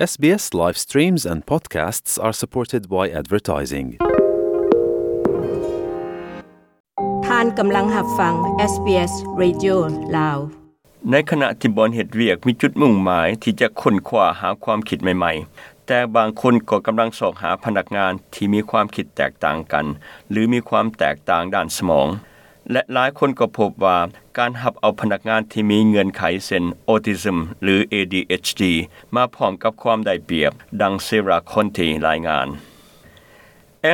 SBS live streams and podcasts are supported by advertising. ທ່ານກຳລັງຮັບຟັງ SBS Radio ລາວ. ໃນຂະນະທີ່ບ່ອນເຮັດວຽກມີຈຸດມຸ່ງໝາຍທີ່ຈະຄົ້ນຄວ້າຫາຄວາມຄິດໃໝ່ໆ, ແຕ່ບາງຄົນກໍກຳລັງຊອກຫາພະນັກງານທີ່ມີຄວາມຄິດແຕກຕ່າງກັນ ຫຼື ມີຄວາມແຕກຕ່າງດ້ານສະໝອງ. ແລະ ຫຼາຍຄົນກໍພົບວ່າການຮັບເອົາພະນັກງານທີ່ມີເງື່ອນໄຂເຊັ່ນ autism ຫຼື ADHD ມາພ້ອມກັບຄວາມໄດ້ປຽບ, ດັ່ງ Sarah Conte ລາຍງານ.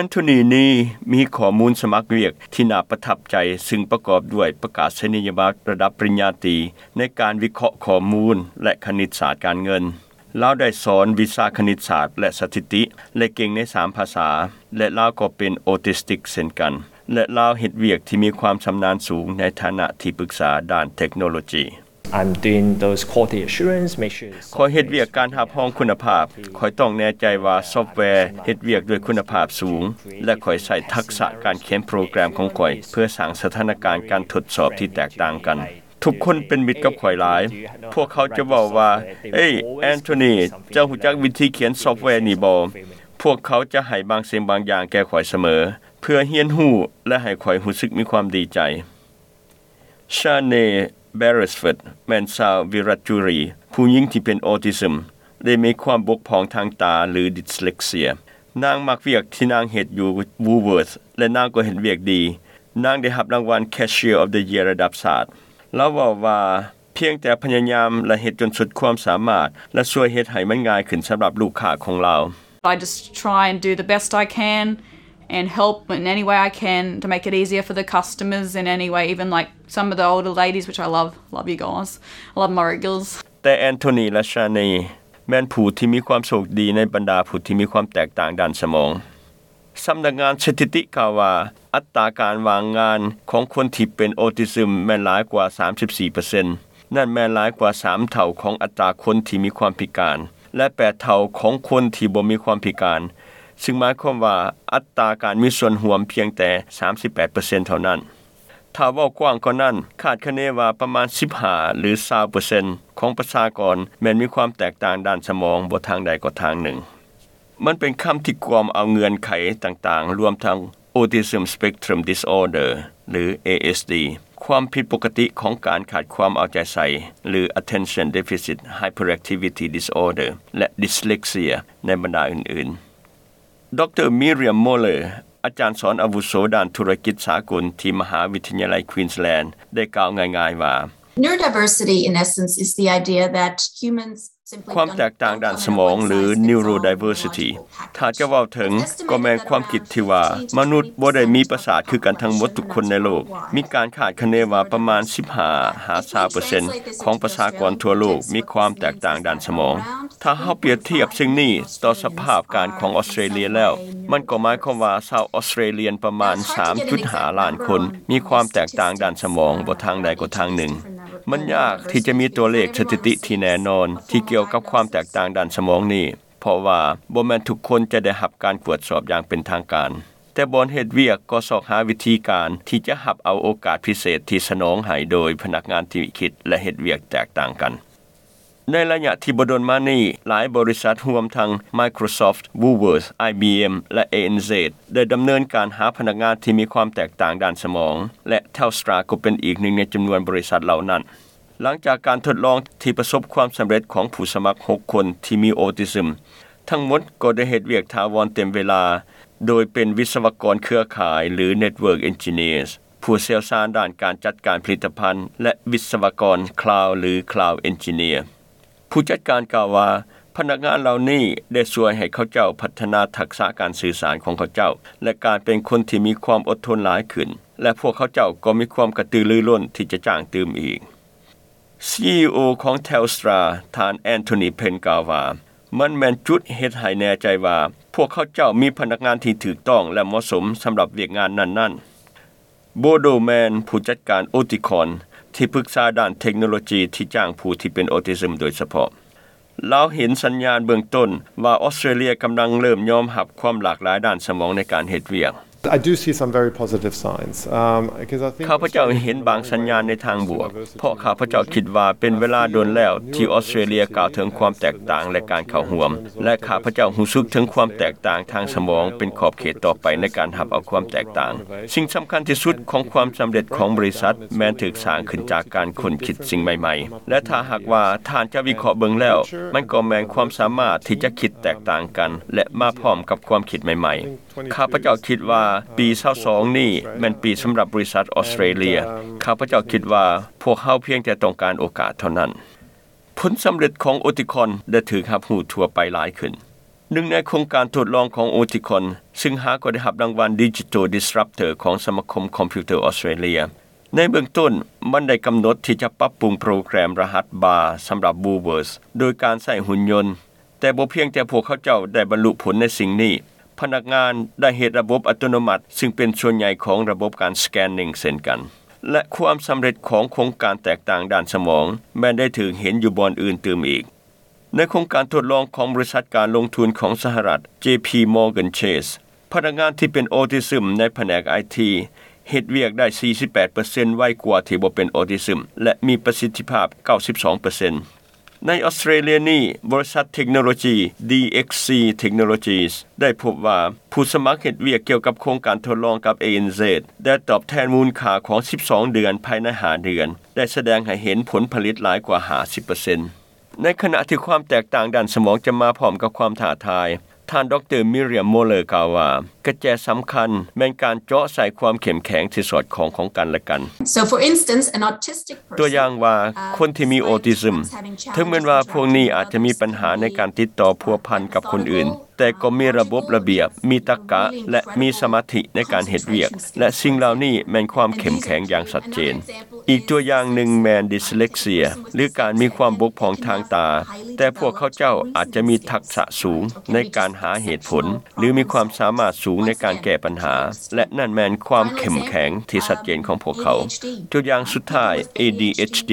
Anthony Nee ມີຂໍ້ມູນສະໝັກວຽກທີ່ໜ້າປະທັບໃຈ, ຊຶ່ງປະກອບດ້ວຍປະກາດສະນີຍະບັດລະດັບປະລິນຍາຕີໃນການວິເຄາະຂໍ້ມູນ ແລະ ຄະນິດສາດການເງິນ. ລາວໄດ້ສອນວິຊາຄະນິດສາດ ແລະ ສະຖິຕິ ແລະ ເກັ່ງໃນສາມພາສາ, ແລະ ລາວກໍເປັນອອທິສຕິກເຊັ່ນກັນ ແລະ ລາວເຮັດວຽກທີ່ມີຄວາມຊຳນານສູງໃນຖານະທີ່ປຶກສາດ້ານເທັກໂນໂລຈີ. I'm doing those quality assurance, make sure it's ຂ້ອຍເຮັດວຽກການຮັບຮອງຄຸນນະພາບ. ຂ້ອຍຕ້ອງແນ່ໃຈວ່າຊອບແວເຮັດວຽກດ້ວຍຄຸນນະພາບສູງ ແລະ ຂ້ອຍໃຊ້ທັກສະການຂຽນໂປຣແກຣມຂອງຂ້ອຍເພື່ອສ້າງສະຖານະການການທົດສອບທີ່ແຕກຕ່າງກັນ. ທຸກຄົນເປັນມິດກັບຂ້ອຍຫຼາຍ. ພວກເຂົາຈະເວົ້າວ່າ, ເອີຍ, Anthony, ເຈົ້າຮູ້ຈັກວິທີຂຽນຊອບແວນີ້ບໍ່? ພວກເຂົາຈະໃຫ້ບາງສິ່ງບາງຢ່າງແກ່ຂ້ອຍສະເໝີ ເພື່ອຮຽນຮູ້ ແລະ ໃຫ້ຂ້ອຍຮູ້ສຶກມີຄວາມດີໃຈ. Shane Beresford ແມ່ນຊາວ Wiradjuri ຜູ້ຍິງທີ່ເປັນ autism ແລະ ມີຄວາມບົກຜ່ອງທາງຕາ ຫຼື dyslexia. ນາງມັກວຽກທີ່ນາງເຮັດຢູ່ Woolworths ແລະ ນາງກໍເຮັດວຽກດີ. ນາງໄດ້ຮັບລາງວັນ Cashier of the Year ລະດັບຊາດ. ລາວເວົ້າວ່າ, ພຽງແຕ່ພະຍາຍາມ ແລະ ເຮັດຈົນສຸດຄວາມສາມາດ ແລະ ຊ່ວຍເຮັດໃຫ້ມັນງ່າຍຂຶ້ນສຳລັບລູກຄ້າຂອງລາວ. I just try and do the best I can and help in any way I can to make it easier for the customers in any way, even, like, some of the older ladies, which I love. Love you guys. I love Murrick Gills. ແຕ່ Anthony ແລະ Shane ແມ່ນຜູ້ທີ່ມີຄວາມໂຊກດີໃນບັນດາຜູ້ທີ່ມີຄວາມແຕກຕ່າງດ້ານສະໝອງ. ສຳນັກງານສະຖິຕິກ່າວວ່າ ອັດຕາການວ່າງງານຂອງຄົນທີ່ເປັນ autism ແມ່ນຫຼາຍກວ່າສາມສິບສີ່ເປີເຊັນ. ນັ້ນແມ່ນຫຼາຍກວ່າສາມເທົ່າຂອງອັດຕາຄົນທີ່ມີຄວາມພິການ ແລະ ແປດເທົ່າຂອງຄົນທີ່ບໍ່ມີຄວາມພິການ, ຊຶ່ງໝາຍຄວາມວ່າອັດຕາການມີສ່ວນຮ່ວມພຽງແຕ່ສາມສິບແປດເປີເຊັນເທົ່ານັ້ນ. ຖ້າເວົ້າກວ້າງກວ່ານັ້ນ, ຄາດຄະເນວ່າປະມານສິບຫ້າ ຫຼື ຊາວເປີເຊັນຂອງປະຊາກອນແມ່ນມີຄວາມແຕກຕ່າງດ້ານສະໝອງບໍ່ທາງໃດກໍທາງໜຶ່ງ. ມັນເປັນຄຳທີ່ກວມເອົາເງື່ອນໄຂຕ່າງໆ, ລວມທັງ Autism Spectrum Disorder ຫຼື ASD, ຄວາມຜິດປົກກະຕິຂອງການຂາດຄວາມເອົາໃຈໃສ່ ຫຼື Attention Deficit Hyperactivity Disorder ແລະ Dyslexia ໃນບັນດາອື່ນໆ. ດຣ. Miriam Moller ອາຈານສອນອາວຸໂສດ້ານທຸລະກິດສາກົນທີ່ມະຫາວິທະຍາໄລ Queensland ໄດ້ກ່າວງ່າຍໆວ່າ, Neurodiversity, in essence, is the idea that humans simply ຄວາມແຕກຕ່າງດ້ານສະໝອງ ຫຼື neurodiversity ຖ້າຈະເວົ້າເຖິງ ກໍແມ່ນຄວາມຄິດທີ່ວ່າມະນຸດບໍ່ໄດ້ມີປະສາດຄືກັນທັງໝົດທຸກຄົນໃນໂລກ. ມີການຄາດຄະເນວ່າປະມານສິບຫ້າຫາຊາວເປີເຊັນຂອງປະຊາກອນທົ່ວໂລກມີຄວາມແຕກຕ່າງດ້ານສະໝອງ. ຖ້າເຮົາປຽບທຽບສິ່ງນີ້ຕໍ່ສະພາບການຂອງອອສເຕຣເລຍແລ້ວ, ມັນກໍໝາຍຄວາມວ່າຊາວອອສເຕຣລຽນປະມານສາມຈຸດຫ້າລ້ານຄົນມີຄວາມແຕກຕ່າງດ້ານສະໝອງບໍ່ທາງໃດກໍທາງໜຶ່ງ. ມັນຍາກທີ່ຈະມີຕົວເລກສະຖິຕິທີ່ແນ່ນອນທີ່ກ່ຽວກັບຄວາມແຕກຕ່າງດ້ານສະໝອງນີ້, ເພາະວ່າບໍ່ແມ່ນທຸກຄົນຈະໄດ້ຮັບການກວດສອບຢ່າງເປັນທາງການ. ແຕ່ບ່ອນເຮັດວຽກກໍຊອກຫາວິທີການທີ່ຈະຮັບເອົາໂອກາດພິເສດທີ່ສະໜອງໃຫ້ໂດຍພະນັກງານທີ່ຄິດ ແລະ ເຮັດວຽກແຕກຕ່າງກັນ. ໃນໄລຍະທີ່ບໍ່ດົນມານີ້, ຫຼາຍບໍລິສັດຮວມທັງ Microsoft, Woolworths, IBM ແລະ ANZ ໄດ້ດຳເນີນການຫາພະນັກງານທີ່ມີຄວາມແຕກຕ່າງດ້ານສະໝອງ ແລະ Telstra ກໍເປັນອີກໜຶ່ງໃນຈຳນວນບໍລິສັດເຫຼົ່ານັ້ນ. ຫຼັງຈາກການທົດລອງທີ່ປະສົບຄວາມສຳເລັດຂອງຜູ້ສະໝັກຫົກຄົນທີ່ມີໂອທິຊຶມ, ທັງໝົດກໍໄດ້ເຮັດວຽກຖາວອນເຕັມເວລາ, ໂດຍເປັນວິສະວະກອນເຄືອຂ່າຍ ຫຼື Network Engineers, ຜູ້ຊ່ຽວຊານດ້ານການຈັດການຜະລິດຕະພັນ ແລະ ວິສະວະກອນ Cloud ຫຼື Cloud Engineer. ຜູ້ຈັດການກ່າວວ່າ, ພະນັກງານເຫຼົ່ານີ້ໄດ້ຊ່ວຍໃຫ້ເຂົາເຈົ້າພັດທະນາທັກສະການສື່ສານຂອງເຂົາເຈົ້າ ແລະ ການເປັນຄົນທີ່ມີຄວາມອົດທົນຫຼາຍຂຶ້ນ ແລະ ພວກເຂົາເຈົ້າກໍມີຄວາມກະຕືລືລົ້ນທີ່ຈະຈ້າງຕື່ມອີກ. ຊີອີໂອ ຂອງ Telstra ທ່ານ Anthony Penn ກ່າວວ່າ, ມັນແມ່ນຈຸດເຮັດໃຫ້ແນ່ໃຈວ່າພວກເຂົາເຈົ້າມີພະນັກງານທີ່ຖືກຕ້ອງ ແລະ ເໝາະສົມສຳລັບວຽກງານນັ້ນໆ. Bodo Mann ຜູ້ຈັດການ Oticon ທີ່ປຶກສາດ້ານເທັກໂນໂລຈີທີ່ຈ້າງຜູ້ທີ່ເປັນໂອທິຊຶມໂດຍສະເພາະ, ລາວເຫັນສັນຍານເບື້ອງຕົ້ນວ່າອອສເຕຣເລຍກຳລັງເລີ່ມຍອມຮັບຄວາມຫຼາກຫຼາຍດ້ານສະໝອງໃນການເຮັດວຽກ. I do see some very positive signs, um, 'cause I think ຂ້າພະເຈົ້າເຫັນບາງສັນຍານໃນທາງບວກ ເພາະຂ້າພະເຈົ້າຄິດວ່າເປັນເວລາດົນແລ້ວທີ່ອອສເຕຣເລັຽກ່າວເຖິງຄວາມແຕກຕ່າງ ແລະ ການເຂົ້າຮ່ວມ ແລະ ຂ້າພະເຈົ້າຮູ້ສຶກເຖິງຄວາມແຕກຕ່າງທາງສະໝອງເປັນຂອບເຂດຕໍ່ໄປໃນການຮັບເອົາຄວາມແຕກຕ່າງ. ສິ່ງສຳຄັນທີ່ສຸດຂອງຄວາມສຳເລັດຂອງບໍລິສັດແມ່ນຖືກສ້າງຂຶ້ນຈາກການຄົ້ນຄິດສິ່ງໃໝ່ໆ ແລະ ຖ້າຫາກວ່າທ່ານຈະວິເຄາະເບິ່ງແລ້ວ ມັນກໍແມ່ນຄວາມສາມາດທີ່ຈະຄິດແຕກຕ່າງກັນ ແລະ ມາພ້ອມກັບຄວາມຄິດໃໝ່ໆ. ຂ້າພະເຈົ້າຄິດວ່າປີຊາວສອງນີ້ແມ່ນປີສຳລັບບໍລິສັດອອສເຕຣເລັຽ. ຂ້າພະເຈົ້າຄິດວ່າພວກເຮົາພຽງແຕ່ຕ້ອງການໂອກາດເທົ່ານັ້ນ. ຜົນສຳເລັດຂອງໂອຕິຄອນໄດ້ຖືກຮັບຮູ້ທົ່ວໄປຫຼາຍຂຶ້ນ. ໜຶ່ງໃນໂຄງການທົດລອງຂອງໂອຕິຄອນ ຊຶ່ງຫາກໍໄດ້ຮັບລາງວັນ Digital Disruptor ຂອງສະມາຄົມຄອມພິວເຕີອອສເຕຣເລັຽ. ໃນເບື້ອງຕົ້ນ, ມັນໄດ້ກຳນົດທີ່ຈະປັບປຸງໂປຣແກຣມລະຫັດບາສຳລັບ Woolworths ໂດຍການໃຊ້ຫຸ່ນຍົນ. ແຕ່ບໍ່ພຽງແຕ່ພວກເຂົາເຈົ້າໄດ້ບັນລຸຜົນໃນສິ່ງນີ້, ພະນັກງານໄດ້ເຮັດລະບົບອັດຕະໂນມັດ ຊຶ່ງເປັນສ່ວນໃຫຍ່ຂອງລະບົບການ scanning ເຊັ່ນກັນ. ແລະ ຄວາມສຳເລັດຂອງໂຄງການແຕກຕ່າງດ້ານສະໝອງ ແມ່ນໄດ້ຖືກເຫັນຢູ່ບ່ອນອື່ນຕື່ມອີກ. ໃນໂຄງການທົດລອງຂອງບໍລິສັດການລົງທຶນຂອງສະຫະລັດ JP Morgan Chase, ພະນັກງານທີ່ເປັນອອທິຊຶມໃນພະແນກໄອທີ ເຮັດວຽກໄດ້ສີ່ສິບແປດເປີເຊັນໄວກວ່າທີ່ບໍ່ເປັນອອທິຊຶມ ແລະ ມີປະສິດທິພາບເກົ້າສິບສອງເປີເຊັນ. ໃນອອສເຕຣເລັຽນີ້, ບໍລິສັດເທັກໂນໂລຈີ DXC Technologies ໄດ້ພົບວ່າ ຜູ້ສະໝັກເຮັດວຽກກ່ຽວກັບໂຄງການທົດລອງກັບ ANZ ໄດ້ຕອບແທນມູນຄ່າຂອງສິບສອງເດືອນພາຍໃນຫ້າເດືອນ ໄດ້ສະແດງໃຫ້ເຫັນຜົນຜະລິດຫຼາຍກວ່າຫ້າສິບເປີເຊັນ. ໃນຂະນະທີ່ຄວາມແຕກຕ່າງດ້ານສະໝອງຈະມາພ້ອມກັບຄວາມທ້າທາຍ, ທ່ານ ດຣ. Myriam Muller ກ່າວວ່າ, ກະແຈສຳຄັນແມ່ນການເຈາະໃສ່ຄວາມເຂັ້ມແຂງທີ່ສອດຄ່ອງຂອງກັນ ແລະ ກັນ. So, for instance, an autistic ຕົວຢ່າງວ່າ, ຄົນທີ່ມີອອທິຊຶມ, ເຖິງແມ່ນວ່າພວກນີ້ອາດຈະມີບັນຫາໃນການຕິດຕໍ່ພົວພັນກັບຄົນອື່ນ, ແຕ່ກໍມີລະບົບລະບຽບ, ມີຕັກກະ ແລະ ມີສະມາທິໃນການເຮັດວຽກ, ແລະ ສິ່ງເຫຼົ່ານີ້ແມ່ນຄວາມເຂັ້ມແຂງຢ່າງຊັດເຈນ. ອີກຕົວຢ່າງໜຶ່ງແມ່ນດິສເລັກເຊຍ ຫຼື ການມີຄວາມບົກຜ່ອງທາງຕາ, ແຕ່ພວກເຂົາເຈົ້າອາດຈະມີທັກສະສູງໃນການຫາເຫດຜົນ ຫຼື ມີຄວາມສາມາດສູງໃນການແກ້ບັນຫາ, ແລະ ນັ້ນແມ່ນຄວາມເຂັ້ມແຂງທີ່ຊັດເຈນຂອງພວກເຂົາ. ຕົວຢ່າງສຸດທ້າຍ, ADHD.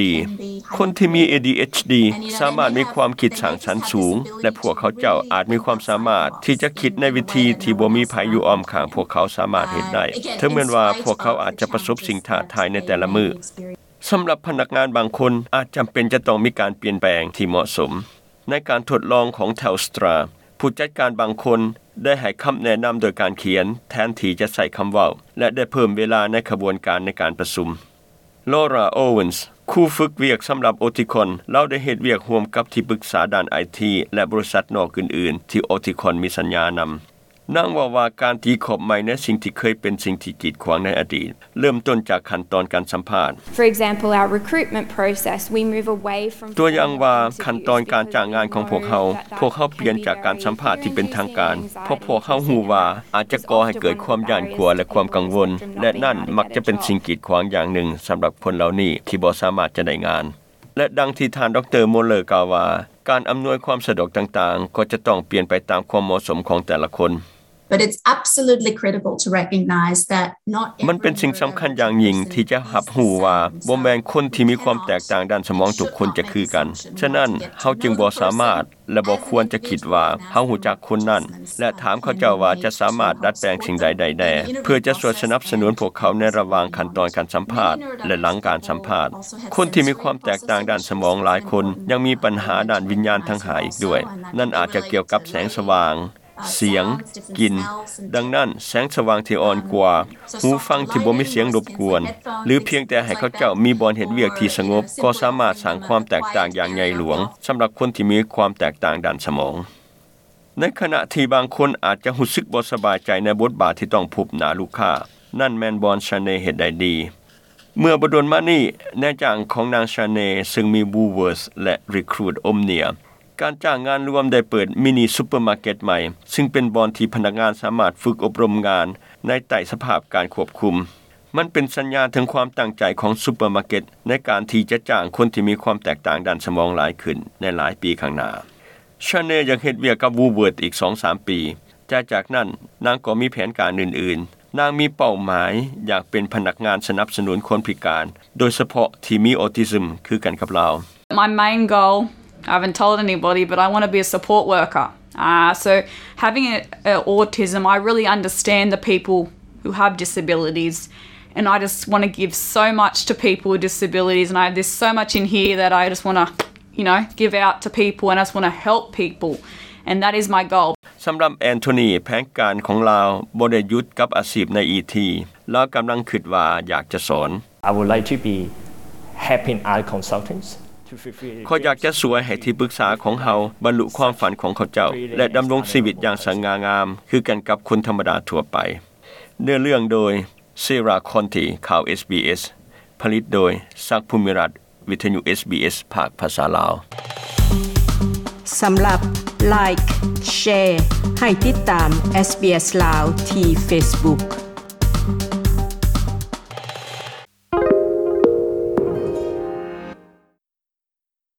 ຄົນທີ່ມີ ADHD ສາມາດມີຄວາມຄິດສ້າງສັນສູງ ແລະ ພວກເຂົາເຈົ້າອາດມີຄວາມສາມາດທີ່ຈະຄິດໃນວິທີທີ່ບໍ່ມີໃຜຢູ່ອ້ອມຂ້າງພວກເຂົາສາມາດເຮັດໄດ້, ເຖິງແມ່ນວ່າພວກເຂົາອາດຈະປະສົບສິ່ງທ້າທາຍໃນແຕ່ລະມື້. ສຳລັບພະນັກງານບາງຄົນ ອາດຈຳເປັນຈະຕ້ອງມີການປ່ຽນແປງທີ່ເໝາະສົມ. ໃນການທົດລອງຂອງ Telstra, ຜູ້ຈັດການບາງຄົນໄດ້ໃຫ້ຄຳແນະນຳໂດຍການຂຽນແທນທີ່ຈະໃຊ້ຄຳເວົ້າ ແລະ ໄດ້ເພີ່ມເວລາໃນຂະບວນການໃນການປະຊຸມ. Laura Owens, ຄູຝຶກວຽກສຳລັບ Oticon, ລາວໄດ້ເຮັດວຽກຮ່ວມກັບທີ່ປຶກສາດ້ານໄອທີ ແລະ ບໍລິສັດນອກອື່ນໆ ທີ່ Oticon ມີສັນຍານຳ. ນາງເວົ້າວ່າການຕີຂອບໃໝ່ໃນສິ່ງທີ່ເຄີຍເປັນສິ່ງທີ່ກີດຂວາງໃນອະດີດ ເລີ່ມຕົ້ນຈາກຂັ້ນຕອນການສຳພາດ. For example, our recruitment process, we move away from ຕົວຢ່າງວ່າ, ຂັ້ນຕອນການຈ້າງງານຂອງພວກເຮົາ, ພວກເຮົາປ່ຽນຈາກການສຳພາດທີ່ເປັນທາງການ, ເພາະພວກເຮົາຮູ້ວ່າອາດຈະກໍ່ໃຫ້ເກີດຄວາມຢ້ານກົວ ແລະ ຄວາມກັງວົນ, ແລະ ນັ້ນມັກຈະເປັນສິ່ງກີດຂວາງຢ່າງໜຶ່ງສຳລັບຄົນເຫຼົ່ານີ້ທີ່ບໍ່ສາມາດຈະໄດ້ງານ. ແລະ ດັ່ງທີ່ທ່ານ ດຣ. Muller ກ່າວວ່າ, ການອຳນວຍຄວາມສະດວກຕ່າງໆ ກໍຈະຕ້ອງປ່ຽນໄປຕາມຄວາມເໝາະສົມຂອງແຕ່ລະຄົນ. But it's absolutely critical to recognize that not every ມັນເປັນສິ່ງສຳຄັນຢ່າງຍິ່ງທີ່ຈະຮັບຮູ້ວ່າ ບໍ່ແມ່ນຄົນທີ່ມີຄວາມແຕກຕ່າງດ້ານສະໝອງທຸກຄົນຈະຄືກັນ. ສະນັ້ນ, ເຮົາຈຶ່ງບໍ່ສາມາດ ແລະ ບໍ່ຄວນຈະຄິດວ່າເຮົາຮູ້ຈັກຄົນນັ້ນ ແລະ ຖາມເຂົາເຈົ້າວ່າຈະສາມາດດັດແປງສິ່ງໃດໄດ້ແດ່ ເພື່ອຈະຊ່ວຍສະໜັບສະໜູນພວກເຂົາໃນລະຫວ່າງຂັ້ນຕອນການສຳພາດ ແລະ ຫຼັງການສຳພາດ. ຄົນທີ່ມີຄວາມແຕກຕ່າງດ້ານສະໝອງຫຼາຍຄົນຍັງມີບັນຫາດ້ານວິນຍານທັງຫ້າອີກດ້ວຍ. ນັ້ນອາດຈະກ່ຽວກັບແສງສະຫວ່າງ, ສຽງ, ກິ່ນ. ດັ່ງນັ້ນ, ແສງສະຫວ່າງທີ່ອ່ອນກວ່າ, ຫູຟັງທີ່ບໍ່ມີສຽງລົບກວນ ຫຼື ພຽງແຕ່ໃຫ້ເຂົາເຈົ້າມີບ່ອນເຮັດວຽກທີ່ສະຫງົບ ກໍສາມາດສ້າງຄວາມແຕກຕ່າງຢ່າງໃຫຍ່ຫຼວງສຳລັບຄົນທີ່ມີຄວາມແຕກຕ່າງດ້ານສະໝອງ. ໃນຂະນະທີ່ບາງຄົນອາດຈະຮູ້ສຶກບໍ່ສະບາຍໃຈໃນບົດບາດທີ່ຕ້ອງພົບໜ້າລູກຄ້າ, ນັ້ນແມ່ນບ່ອນ Shane ເຮັດໄດ້ດີ. ເມື່ອບໍ່ດົນມານີ້, ນາຍຈ້າງຂອງນາງ Shane ເຊິ່ງມີ Woolworths ແລະ Recruit Omnia, ການຈ້າງງານລວມໄດ້ເປີດມິນິຊຸບເປີມາເກັດໃໝ່, ເຊິ່ງເປັນບ່ອນທີ່ພະນັກງານສາມາດຝຶກອົບຮົມງານໃນໃຕ້ສະພາບການຄວບຄຸມ. ມັນເປັນສັນຍານເຖິງຄວາມຕັ້ງໃຈຂອງຊຸບເປີມາເກັດໃນການທີ່ຈະຈ້າງຄົນທີ່ມີຄວາມແຕກຕ່າງດ້ານສະໝອງຫຼາຍຂຶ້ນໃນຫຼາຍປີຂ້າງໜ້າ. Shane ຍັງເຮັດວຽກກັບ Woolworths ອີກສອງສາມປີ, ແຕ່ຈາກນັ້ນນາງກໍມີແຜນການອື່ນໆ. ນາງມີເປົ້າໝາຍຢາກເປັນພະນັກງານສະໜັບສະໜູນຄົນພິການ, ໂດຍສະເພາະທີ່ມີອອທິຊຶມຄືກັນກັບລາວ. My main goal, I haven't told anybody, but I want to be a support worker. Uh, so having a, a autism, I really understand the people who have disabilities. And I just want to give so much to people with disabilities. And I, there's so much in here that I just want to, you know, give out to people. And I just want to help people. And that is my goal. สำหรับแอนโทนี แผนการของลาวบ่ได้หยุดกับอาชีพในอีที ลาวกำลังคิดว่าอยากจะสอน I would like to be helping other consultants to fulfill ข้อยอยากจะช่วยให้ที่ปรึกษาของเฮาบรรลุความฝันของเขาเจ้า และดำรงชีวิตอย่างสง่างาม คือกันกับคนธรรมดาทั่วไป เนื้อเรื่องโดย เซรา คอนติ ข่าว SBS ผลิตโดย ศักดิ์ ภูมิรัตน์ วิทยุ SBS ภาคภาษาลาว สำหรับ Like Share ให้ติดตาม SBS ลาวที่ Facebook.